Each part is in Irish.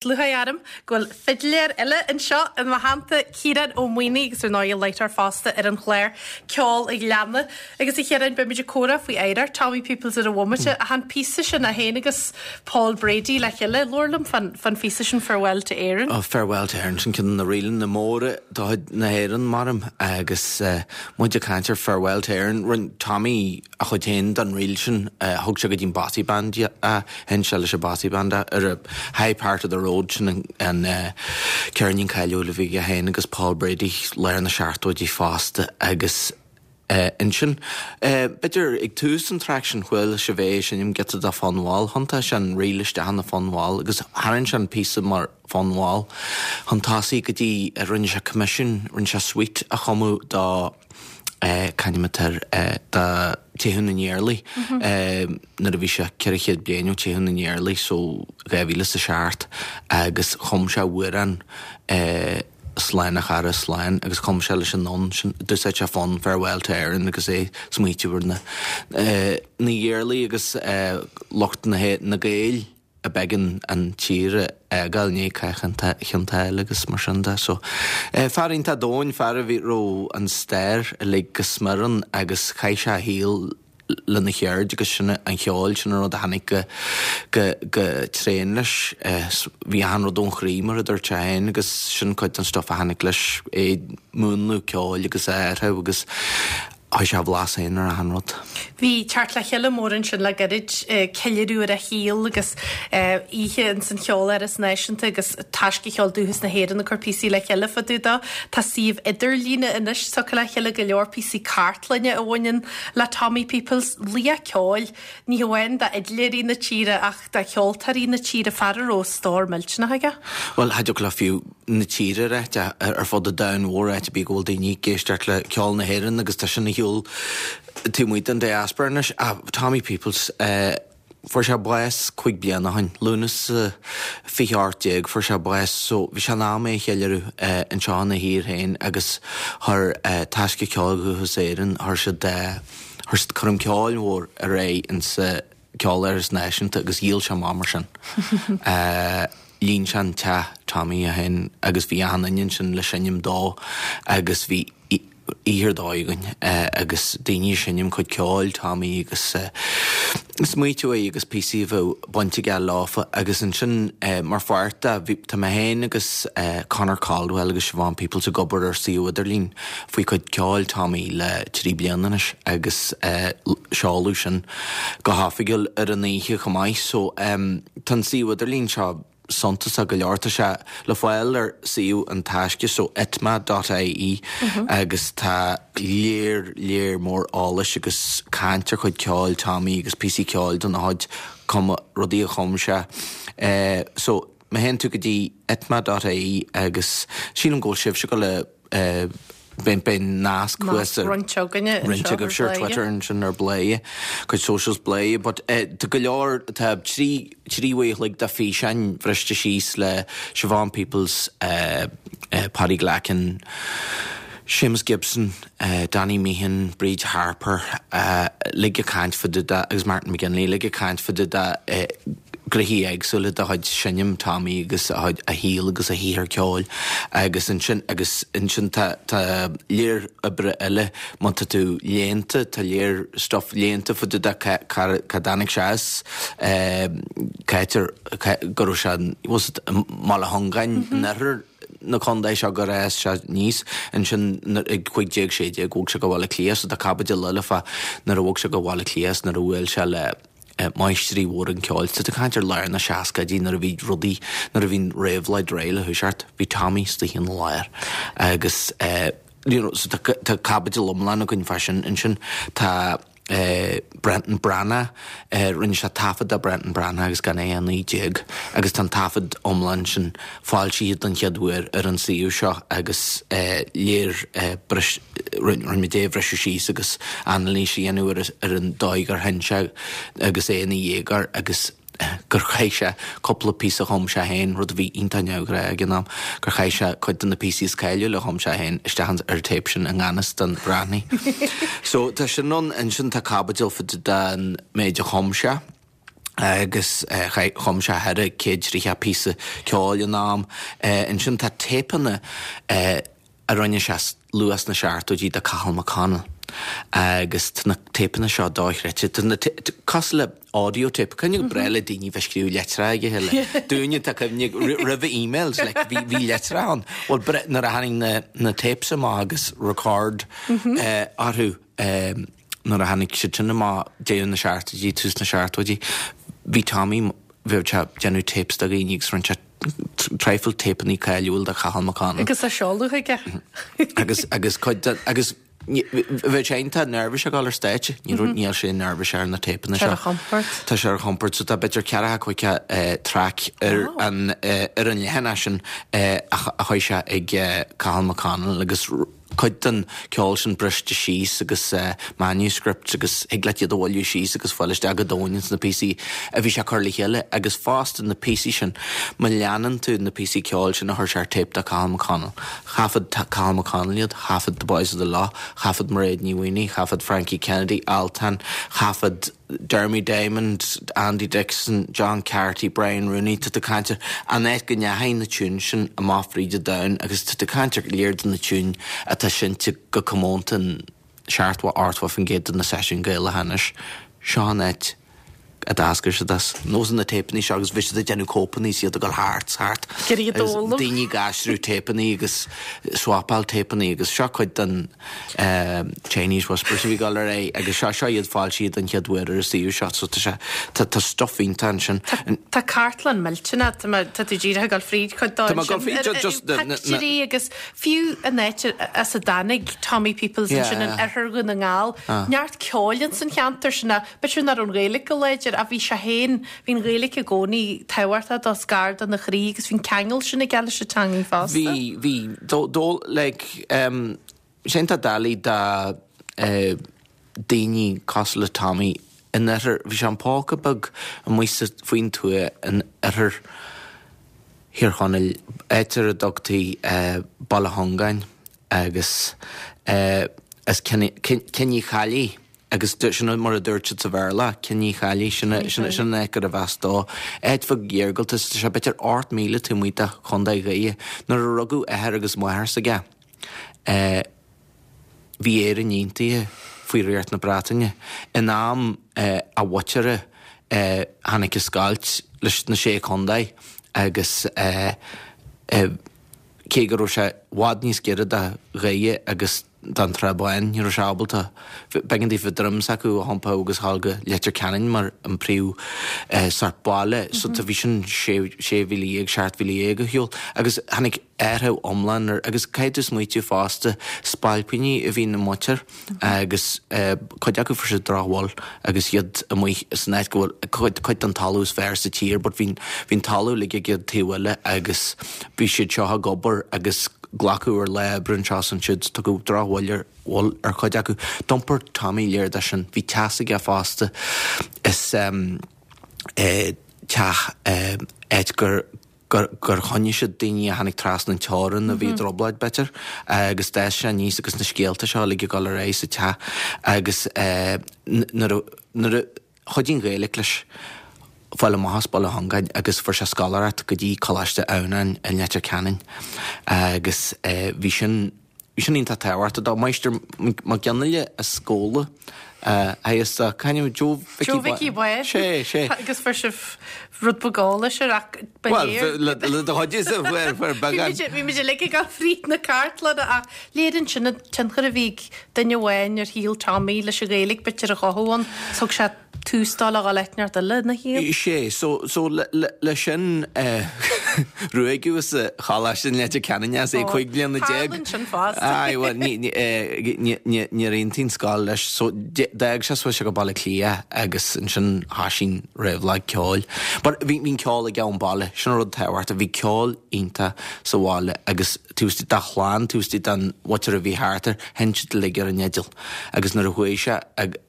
Lúcháir orm go bhfuil fidléir eile anseo i mo theannta, Ciarán Ó Maonaigh, agus ar ndóigh láithreoir fosta ar an chlár Ceol an Ghleanna. Agus a Chiaráin, beimid ag comhrá faoi oidhreacht Tommy Peoples ar an bhomaite, ach an píosa sin, é féin agus Paul Brady le chéile, labhair liom fán phíosa sin Farewell to Éirinn. Oh, Farewell to Éirinn, sin ceann de na ríleanna móra de chuid na hÉireann, maram, agus muid ag caint ar Farewell to Éirinn, rinne Tommy a chuid féin den ríl sin, thug sé go dtí an Bothy Band é. Sheinn sé leis an Bothy Band é ar High Part of the Road, sin an ceirnín cáiliúil a bhí aige féin agus Paul Brady, lár na seachtóidí fosta agus ansin, b'fhéidir ag tús an traic sin chuala sibh é ag seinm giota de fonn mall, thiontaigh sé an ríl isteach ina fonn mall agus tharraing sé an píosa mar fonn mall chun tosaigh go dtí rinne sé coimisiún, rinne sé suite a chumadh do. c'ainm atá air, do Teitheadh na nIarlaí, nuair a bhí sé 400 bliain ó Teitheadh na nIarlaí, so 2007, agus chum sé amhrán Slán a chara, slán, agus chum sé leis an fhonn sin, d'úsáid sé fonn Farewell to Erin agus é ag smaoitiú ar na na hIarlaí agus lucht na na Gaeil. a b'éigean an tír a fhágáil i ndiaidh Chath Chionn tSáile agus mar sin de. So, fear iontach domhain, fear a bhí, raibh an stair uilig go smior ann agus chaith sé a shaol lena cheird agus sin an cheol, sin an rud a tháinig go, go, go tréan leis. Bhí achan rud ón chroí mar a dúirt sé féin agus sin cuid den stuff a tháinig leis, é ag múnlú ceoil agus a athrú agus Chuir sé a bhlas féin ar achan rud. Bhí teacht le chéile mór ansin le gairid, ceiliúradh ar a shaol agus oíche ins an Cheoláras Náisiúnta agus Taisce Cheol Dúchas na hÉireann ag cur píosaí le chéile fá dtaobh dó. Tá suíomh idirlíne anois tugtha le chéile, go leor píosaí cartlainne a bhaineann le Tommy Peoples. Laoch ceoil, ní hamháin d'fhidléirí na tíre ach do cheoltóirí na tíre, fear a raibh stór millteanach aige. Bhuel, cha dtiocfadh le fiú na tíre a ráit, ar fud an domhain mhóir, áit ar bith go bhfuil daoine ag éisteacht le ceol na hÉireann agus tá sin ar shiúl taobh amuigh den diaspora anois. Tommy Peoples, fuair sé bás 5 bliana ó shin, Lúnasa 2018 fuair sé bás so bhí sé in am é a cheiliúradh anseo ina thír féin agus chuir Taisce Ceoil Dhúchas Éireann, chuir siad, chuir siad coirm ceoil mhór ar aghaidh insa Ceoláras Náisiúnta agus dhíol sé amach mar sin. Líon sé an teach Tommy é féin agus bhí achan duine ansin le seinm dó agus bhí oíche ar dóigh againn agus daoine ag seinm cuid ceoil Tommy agus smaoitiú air agus píosaí a bheadh baint aige leofa agus ansin mar pháirt de bhí tá mé féin agus Conor Caldwell agus Siobhán Peoples ag obair ar suíomh idirlín faoi chuid ceoil Tommy le 3 bliana anois agus seoladh sin go hoifigiúil ar an oíche chomh maith so tá an suíomh idirlín seo suntasach go leor. Tá sé le fáil ar suíomh an Taisce so itma dot ie agus tá léar léar mór eolais agus caint ar chuid ceoil Tommy agus píosaí ceoil den chuid cuma rudaí a chum sé. So má théann tú go dtí itma dot ie agus sílim go bhfuil sibhse ag dul a Beidh beidh nasc thuas ar roinnt againne roinnt agaibhse ar Twitter ansin ar Bladhaire, cuid socials Bladhaire, but tá go leor, tá 3 uair a chloig de físeáin bhriste síos le Siobhán Peoples, Paddy Glackin, Séamus Gibson, Danny Meehan, Bríd Harper, uilig ag caint fá dtaobh de, agus Martin McGinley, uilig ag caint fá dtaobh de gnoithí éagsúla de chuid seinm Tommy agus a chuid, a shaol agus a shaothar ceoil agus ansin, agus ansin tá, tá léar oibre eile, má tá tú léannta, tá léar stuff léannta fá dtaobh de cá, cá, cá dtáinig sé as, cá háit ar, cá, go raibh sé, was it i mBaile Chongáin in oirthear na contae seo gur fhás sé aníos ansin ag 15, 16 bhog sé go Baile Átha Cliath so tá caibidil eile fá nuair a bhog sé go Baile Átha Cliath is nuair a bhuail sé le máistrí mhóra an cheoil. Tá tú ag caint ar lár na seascaidí nuair a bhí rudaí, nuair a bhí an réabhlóid réidh le thoiseacht, bhí Tommy istigh ina lár agus you know so tá tá caibidil iomlán againn fá sin ansin. Tá Brendan Breathnach, rinne sé taifead de Brendan Breathnach agus gan é 19 agus tá an taifead iomlán sin foilsithe don chéad uair ar an suíomh seo agus léir bris, rinne muid é a bhriseadh síos agus anailís a dhéanamh ar ar an dóigh gur sheinn sé agus é ina dhéagóir agus gur chaith sé cúpla píosa a chum sé féin, rud a bhí iontach neamhghnách ag an am, gur chaith sé cuid de na píosaí is cáiliúla a chum sé féin isteach ar an téip sin i ngan fhios don Bhreathnaigh. So tá sin ann, ansin tá caibidil fá dtaobh den méid a chum sé. Agus chum sé 430 píosa ceoil in am. Ansin tá téipeanna a rinne sé luath sna seachtóidí do Cathal McConnell agus tá na téipeanna seo dochreidte. Tá na cosúil le audio tape. Cuimhne go breá le daoine bheith ag scríobh litreacha ag a chéile. Dúinne tá cuimhne roimhe emails like bhí bhí litreacha ann. Bhuel nuair a tháinig na na tapes amach agus record orthu nuair a tháinig siad sin amach deireadh na seachtóidí, tús na seachtóidí, bhí Tommy, bheadh sé ag déanamh tapes do dhaoine agus rinne sé traidhfil téipeanna cáiliúil do Chathal McConnell. Agus á seoladh aige. Agus, agus cuid de, agus bheadh sé iontach neirbhíseach ag dul ar stáitse, ní raibh, níl sé neirbhíseach ar na téipeanna seo. Tá sé ar a chompord. Tá sé ar a chompord, so tá b'fhéidir ceathracha caoga traic ar an, ar an leathanach sin a chuir sé ag Cathal McConnell agus cuid den ceol sin briste síos agus manuscripts agus thig leat iad a bhailiú síos agus fáil isteach go domhain ins na píosaí a bhí sé ag cur le chéile agus fosta na píosaí sin, má leanann tú na píosaí ceoil sin a chuir sé ar tape do Cathal McConnell, thaifead Cathal McConnell iad, thaifead The Boys of the Lough, thaifead Mairéad Ní Mhaonaigh, thaifead Frankie Kennedy, Altan, thaifead. Dermy Diamond, Andy Dixon, John Carty, Brian Rooney, tá tú ag caint ar an áit go ndeachaigh na tiúin sin amach fríd an domhan agus tá tú ag caint ar lear de na tiúin atá seinnte go comónta in 70, 80% de na seisiúin Gaelacha anois. Seo an áit a d'eascair siad as. Nós na téipeanna seo agus bhí siad ag déanamh cóipeanna is iad ag dul thart 's thart agus daoine ag aistriú téipeanna agus swapáil téipeanna agus seo cuid den Chinese Whispers a bhí ag dul ar aghaidh agus seo seo iad foilsithe den chéad uair ar an suíomh seo so tá sé tá tá stuff iontach ansin. Tá cartlann millteanach, tá mé tá tú díreach ag dul fríd chuid dó Tá mé ag dul fríd ju- just na na na Pictiúirí agus fiú an áit as a dtáinig Tommy Peoples ansin in oirthear Dhún na nGall, neart ceoil ins an cheantar sin ach b'fhéidir nach raibh an Ghaeilge go láidir ach bhí sé féin, bhí an Ghaeilge i gcónaí tábhachtach dó is gar dona chroí agus bhí an ceangal sin aige leis an teangaidh fosta. Bhí, bhí, dó dó like em sin tá doiligh do eh daoine cosúil le Tommy in oirthear, bhí sé in póca beag amuigh sa, faoin tuath in oirthear Thír Chonaill, áit ar a dtugtaí eh Baile Chongáin agus eh as Cionn Uí Cheallaigh agus sin mar a dúirt siad sa Bhéarla, Kinnychallie, sin an áit gurbh as dó. Áit bheag iargúlta, tá sé b'fhéidir 8 míle taobh amuigh de Chontae Dhoire. Nuair a rugadh athair agus máthair s'aige, bhí Éirinn aontaithe faoi Ríocht na Breataine. In am a mhuintire tháinig an scoilt leis na Sé Chontae agus cé go raibh sé i bhfad níos giorra do Dhoire agus don Trá Bháin, ní raibh sé ábalta. B'éigean daofa droim s'acu a iompú agus a ghabháil go Leitir Ceanainn mar an príomh sort baile. So bhí sin 16,000, 17,000 ar shiúl. Agus tháinig athrú iomlán ar, agus caithfidh tú smaoitiú fosta, spailpíní a bhí ina muintir agus cuid acu fuair siad drochbhail agus iad amuigh san áit go bhfuil cuid den talamh is fearr sa tír but bhí an talamh uilig ag an taobh eile agus bhí siad seo ag obair agus glacadh ar lá oibre anseo is ansiúd, tugadh drochbhail ar bhail ar chuid acu. D'iompair Tommy lear de sin. Bhí teach aige fosta is teach áit gur gur gur choinnigh siad daoine a tháinig trasna an teorainn a bhí i dtrioblóid b'fhéidir agus d'fhás sé aníos agus na scéalta seo uilig ag dul ar aghaidh sa teach agus nuair a nuair a Chuidigh an Ghaeilge leis fáil amach as Baile Chongáin agus fuair sé scoláireacht go dtí Coláiste Adhamhnáin i Leitir Ceanainn agus bhí sin bhí sin iontach tábhachtach dó. Máistir Mac Fhionnghaile as Gabhla a theagasc dó. C'ainm Joe Mhicí Joe Mhicí Bháin. Sé, sé. Agus fuair sibh rud beag eolais air ach ba léir. Bhuel, le do chuid is fuair fuair beagán. Bhí muid uilig ag dul fríd na cartlainne ach léiríonn sin an tionchar a bhí ag duine amháin ar shaol Tommy leis an Ghaeilge b'fhéidir a chothú ann. Thug sé tús dó le dhul áit inteacht eile ina shaol. Sé, so, so le, le, le sin eh, ruaigeadh as an choláiste in Leitir Ceanainn as é 15 bliana. Tarlaíonn sin fosta. Aye, bhuel, ní, ní, eh, ní, ní, níor aontaigh an scoil leis, so d'fhág sé chuaigh sé go Baile Átha Cliath agus ansin thosaigh an réabhlóid ceoil. But bhí, bhí an ceol aige ón baile, sin an rud tábhachtach, bhí ceol iontach sa bhaile agus taobh istigh dá chlann, taobh istigh den mhuintir a bhí thart air, sheinn siad uilig ar an fhidil. Agus nuair a chuaigh sé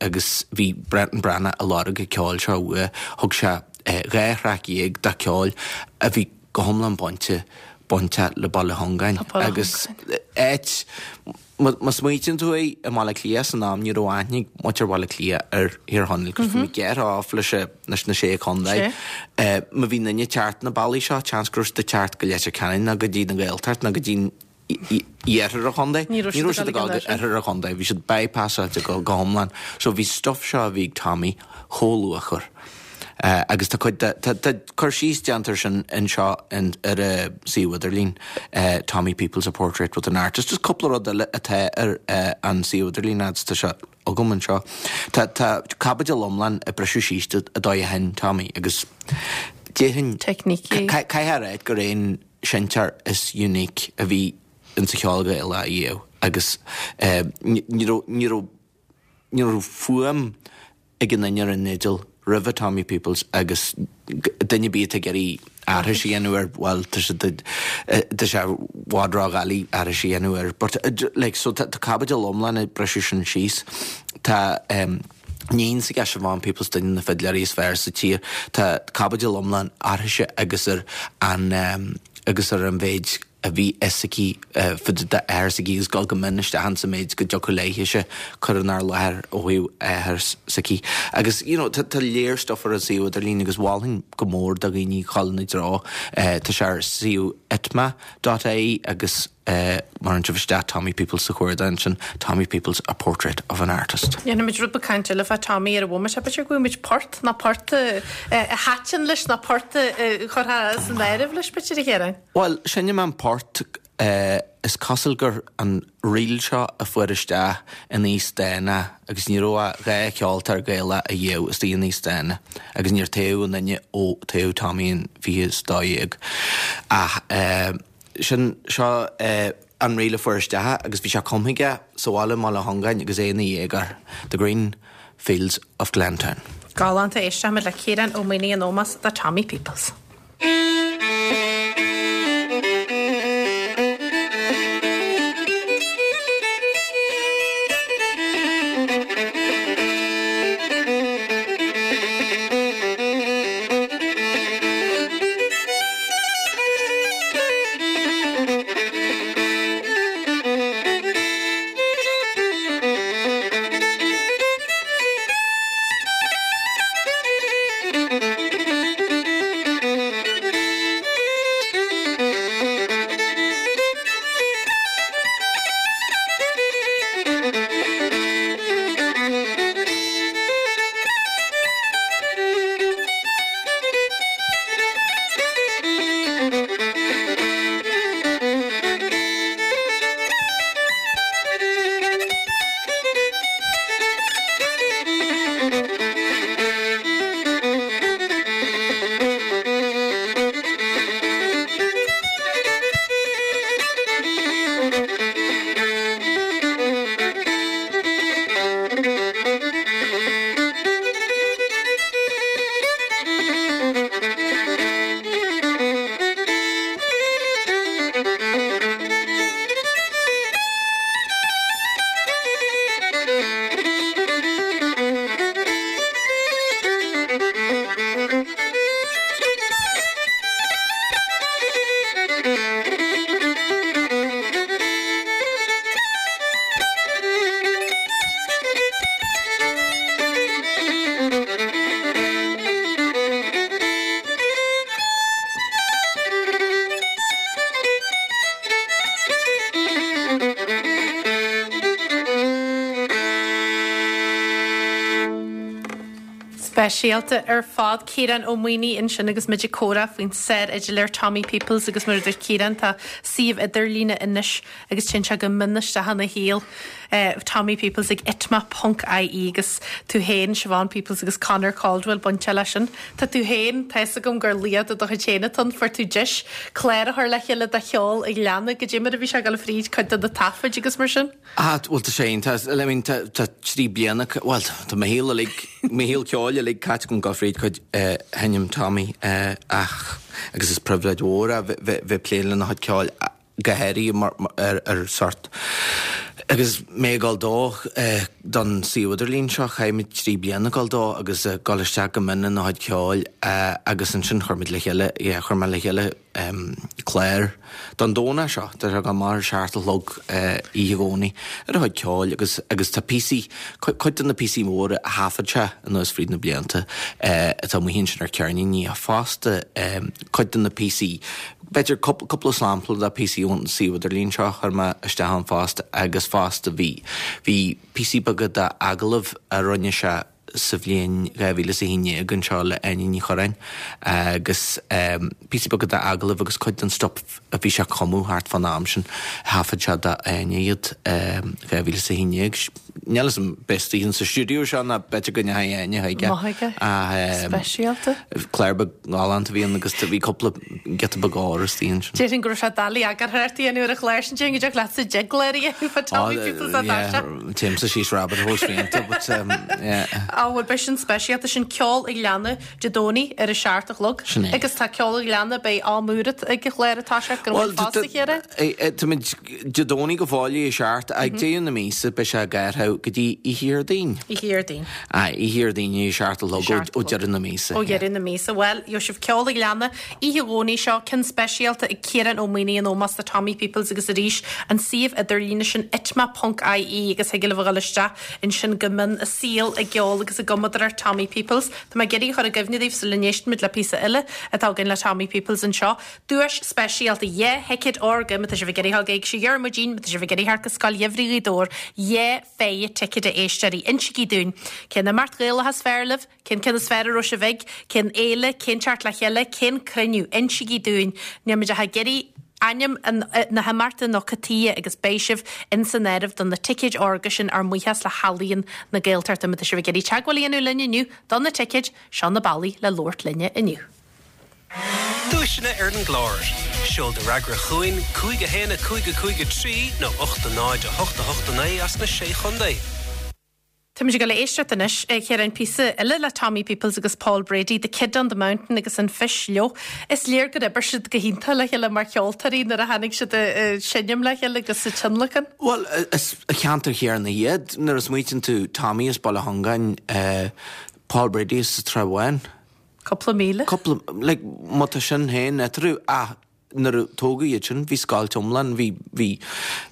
agus bhí Brendan Breathnach ag lorg an ceoil seo uaidh, thug sé 12 thraic de cheol a bhí go hiomlán bainte. bainteach le Baile Chongáin agus áit, má smaoitíonn tú air, i mBaile Átha Cliath san am ní raibh aithne ag muintir Bhaile Átha Cliath ar Thír Chonaill cos bhí muid gearrtha off leis leis na Sé Chontae. Má bhí duine ag teacht na bealaí seo, seans go raibh siad ag teacht go Leitir Ceanainn nó go dtí na Gaeltacht nó go dtí iarthar an chontae. Ní raibh siad ag dul go oirthear an chontae, bhí siad bypassáilte go hiomlán. So bhí stuff seo a bhí ag Tommy chomh luachmhar. Agus tá cuid de, tá cur síos déanta air sin anseo ar an suíomh idirlín, Tommy Peoples, A Portrait with an Artist. Just cúpla rud eile atá ar an suíomh idirlín agus tá sé agam anseo. Tá tá caibidil iomlán ag briseadh síos an dóigh a sheinn Tommy agus déarfainn, Teicnící. caithfidh a ráit gur é an seinnteoir is unique a bhí insa cheol Gaelach ariamh agus ní raibh, ní raibh, ní raibh fuaim ag aon duine ar an fhidil roimhe Tommy Peoples agus duine ar bith atá ag iarraidh aithris a dhéanamh air, bhuel, tá sé, tá sé i bhfad ródhoiligh aithris a dhéanamh air. But like, so tá caibidil iomlán ag briseadh sin síos. Tá iníon s'aige, Siobhán Peoples, duine de na fidléirí is fearr sa tír. Tá caibidil iomlán uirthise agus ar an agus ar an mhéid a bhí fhios aici fá dtaobh d'athair s'aici agus dul go mion isteach insa méid go dtiocfadh léithese cur inár láthair ó thaobh athair s'aici. Agus you know tá tá léar stuff ar an suíomh idirlín agus mholfainn go mór do dhaoine dhul ina dtreo. Tá sé ar suíomh itma dot ie agus má chuireann sibh isteach Tommy Peoples sa chuardach ansin, Tommy Peoples, A Portrait of an Artist. Déanfaimid rud beag cainte eile fá Tommy ar an bhomaite. B'fhéidir go bhfaighimid port nó port a thaitin leis nó port a chuirfeá san áireamh leis, b'fhéidir, a Chiaráin? Bhuel, seinnfidh mé an port, is cosúil gur an ríl seo a fuair isteach in Aosdána agus ní raibh ach 2 cheoltóir Gaelach ariamh istigh in Aosdána agus níor toghadh aon duine ó toghadh Tommy in 2012 ach sin seo an ríl a fuair isteach agus bhí sé cumtha aige sa bhaile i mBaile Chongáin agus é ina dhéagóir, The Green Fields of Glentown. Galánta, éistfimid le Ciarán Ó Maonaigh in ómós do Tommy Peoples. Speisialta ar fad. Ciarán Ó Maonaigh ansin agus muid ag comhrá faoin sár-fhidléir Tommy Peoples agus mar a dúirt Ciarán tá suíomh idirlíne anois agus téann sé go mion isteach ina shaol. Tommy Peoples ag itma ponc ie agus tú féin, Siobhán Peoples agus Conor Caldwell bainteach leis sin. Tá tú féin, tá fhios agam gur laoch de do chuid féin atá ann, fuair tú deis clár a chur le chéile de cheol a Ghleanna, goidé mar a bhí sé ag dul fríd cuid de na taifid agus mar sin? Ah, bhuel tá sé iontach, I mean tá tá 3 bliana, bhuel tá mo shaol uilig, mo shaol ceoil uilig caite agam ag dul fríd cuid sheinm Tommy ach agus is pribhléid mhór é bheith bheith ag plé lena chuid ceoil go háirithe mar ar sort agus mé ag dul dó don suíomh idirlín seo, chaith muid 3 bliana ag dul dó agus ag dul isteach go mion ina chuid ceoil agus ansin chuir muid le chéile, yeah, chuir mé le chéile. clár don Domhnach seo, tá sé ag dul amach ar a seacht a chlog oíche Dhomhnaigh ar a chuid ceoil agus agus tá píosaí, cuid de na píosaí móra a thaifead sé anuas fríd na blianta atá amuigh ansin ar ceirníní ach fosta cuid de na píosaí, b'fhéidir cúpla sampla de píosaí ón suíomh idirlín seo a chuir mé isteach ann fosta agus fosta bhí bhí píosaí beaga d'agallaimh a rinne sé sa bhliain 2011 anseo le Áine Ní Churráin agus píosaí beaga d'agallaimh agus cuid den stuif a bhí sé ag cumadh thart fán am sin, thaifead sé d'Áine iad 2011. Níl 'fhios a'm b'é istigh sa stiúideo seo ná b'fhéidir go ndeachaigh Áine chuige. Maith aige. Speisialta. Clár beag galánta a bhí ann agus bhí cúpla giota beag óir istigh ansin. Déarfainn go raibh sé doiligh eagarthóireacht a dhéanamh ar an chlár sin, déarfainn go dtiocfadh leatsa deich gclár a dhéanamh fá Tommy Peoples á dtaise. Téimse síos rabbit holes fiánta, but yeah. Á bhuel beidh sin speisialta, sin Ceol an Ghleanna Dé Domhnaigh ar a seacht a chlog. Sin é. Agus tá Ceol an Ghleanna, beidh am úr ag an chlár ag toiseacht go bhfuil fosta Chiara? Táimid Dé Domhnaigh go fóill ag a seacht, ag deireadh na míosa beidh sé ag athrú go dtí oíche Dhéardaoin. Oíche Dhéardaoin. Aye, oíche Dhéardaoin ag a seacht a chlog ó deireadh na míosa. Ó dheireadh na míosa. Bhuel, gheobhaidh sibh Ceol an Ghleanna Oíche Dhomhnaigh seo, ceann speisialta ag Ciarán Ó Maonaigh in ómós do Tommy Peoples agus arís an suíomh idirlíne sin itma.ie agus thig libh a dhul isteach ansin go mion i saol i gceol agus i gcumadóireacht Tommy Peoples. Tá mé ag iarraidh a chur i gcuimhne daoibh sula n-éistfimid le píosa eile atá againn le Tommy Peoples anseo. Duais speisialta, dhá thicéad órga má tá sibh ag iarraidh a dhul ag Éigse Dhiarmuidín, má tá sibh ag iarraidh theacht go Scoil Gheimhridh Ghaoth Dobhair, dhá phéire ticéad a éisteoirí. Insígí dúinn cén imeacht Ghaelach is fearr libh, Cén ceann is fearr a raibh sibh ag? Cén fhéile? Cén teacht le chéile? Cén cruinniú? Insígí dúinn. Níl muid ach ag iarraidh ainm na himeachta nó cad tuighe agus beidh sibh ins an áireamh do na ticéid órga sin ár mbuíochas le hEalaíon na Gaeltachta. Má tá sibh ag iarraidh teagmháil a dhéanamh linn inniu do na ticéid, seo na bealaí le labhairt linne inniu. Duaiseanna ar an gclár. Seol do fhreagra chugainn, 5 1 5 5 3 nó 8 0 8 8 9 as na Sé Chontae. Táimid ag dul a éisteacht anois, a Chiaráin, píosa eile le Tommy Peoples agus Paul Brady, The Kid on the Mountain agus An Phis Leo. Is léir gur oibir siad go hiontach le chéile mar cheoltóirí nuair a tháinig siad ag seinm le chéile agus sa tionlacan. Bhuel, is ceantar chéanna iad. Nuair a smaoitíonn tú, Tommy as Baile Chongáin, Paul Brady as an Tsrath Bháin. Cúpla míle. Cúpla, like, má tá sin féin eatarthu, ach Nuair a tógadh iad sin, bhí scoilt iomlán, bhí, bhí,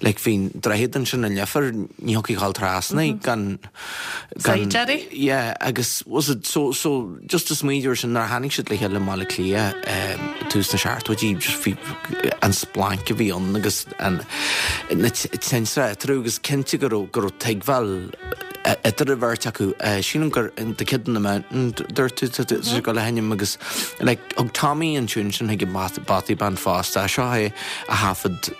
like, bhí an droichead ansin i Leifear, ní thiocfaí a ghabháil trasna gan, gan, Saighdiúirí? yeah, agus was it, so, so, just ag smaoineamh air sin, nuair a tháinig siad le chéile i mBaile Átha Cliath, eh, tús na seachtóidí, just bhí an splanc a bhí ann agus an, na tintreach eatarthu agus cinnte go raibh, go raibh tuigbheáil idir an bheirt acu. Sílim gur The Kid on the Mountain dúirt tú tá sé ag dul a sheinm agus like thug Tommy an tiún sin chuig an Bothy Band fosta. Seo é a thaifead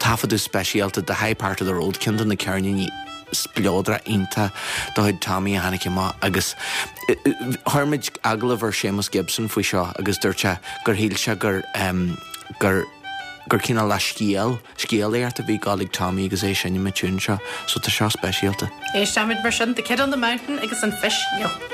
taifeadadh speisialta The High Part of the Road, ceann de na ceirníní spleodrach iontach de chuid Tommy a tháinig amach agus chuir muid agallamh ar Séamus Gibson faoi seo agus dúirt sé gur shíl sé gur gur gur cineál de scéal Scéalaíocht a bhí ag gabháil ag Tommy agus é ag seinm an tiún seo, so tá seo speisialta. Éistfimid mar sin, The Kid on the Mountain agus An Phis Leo.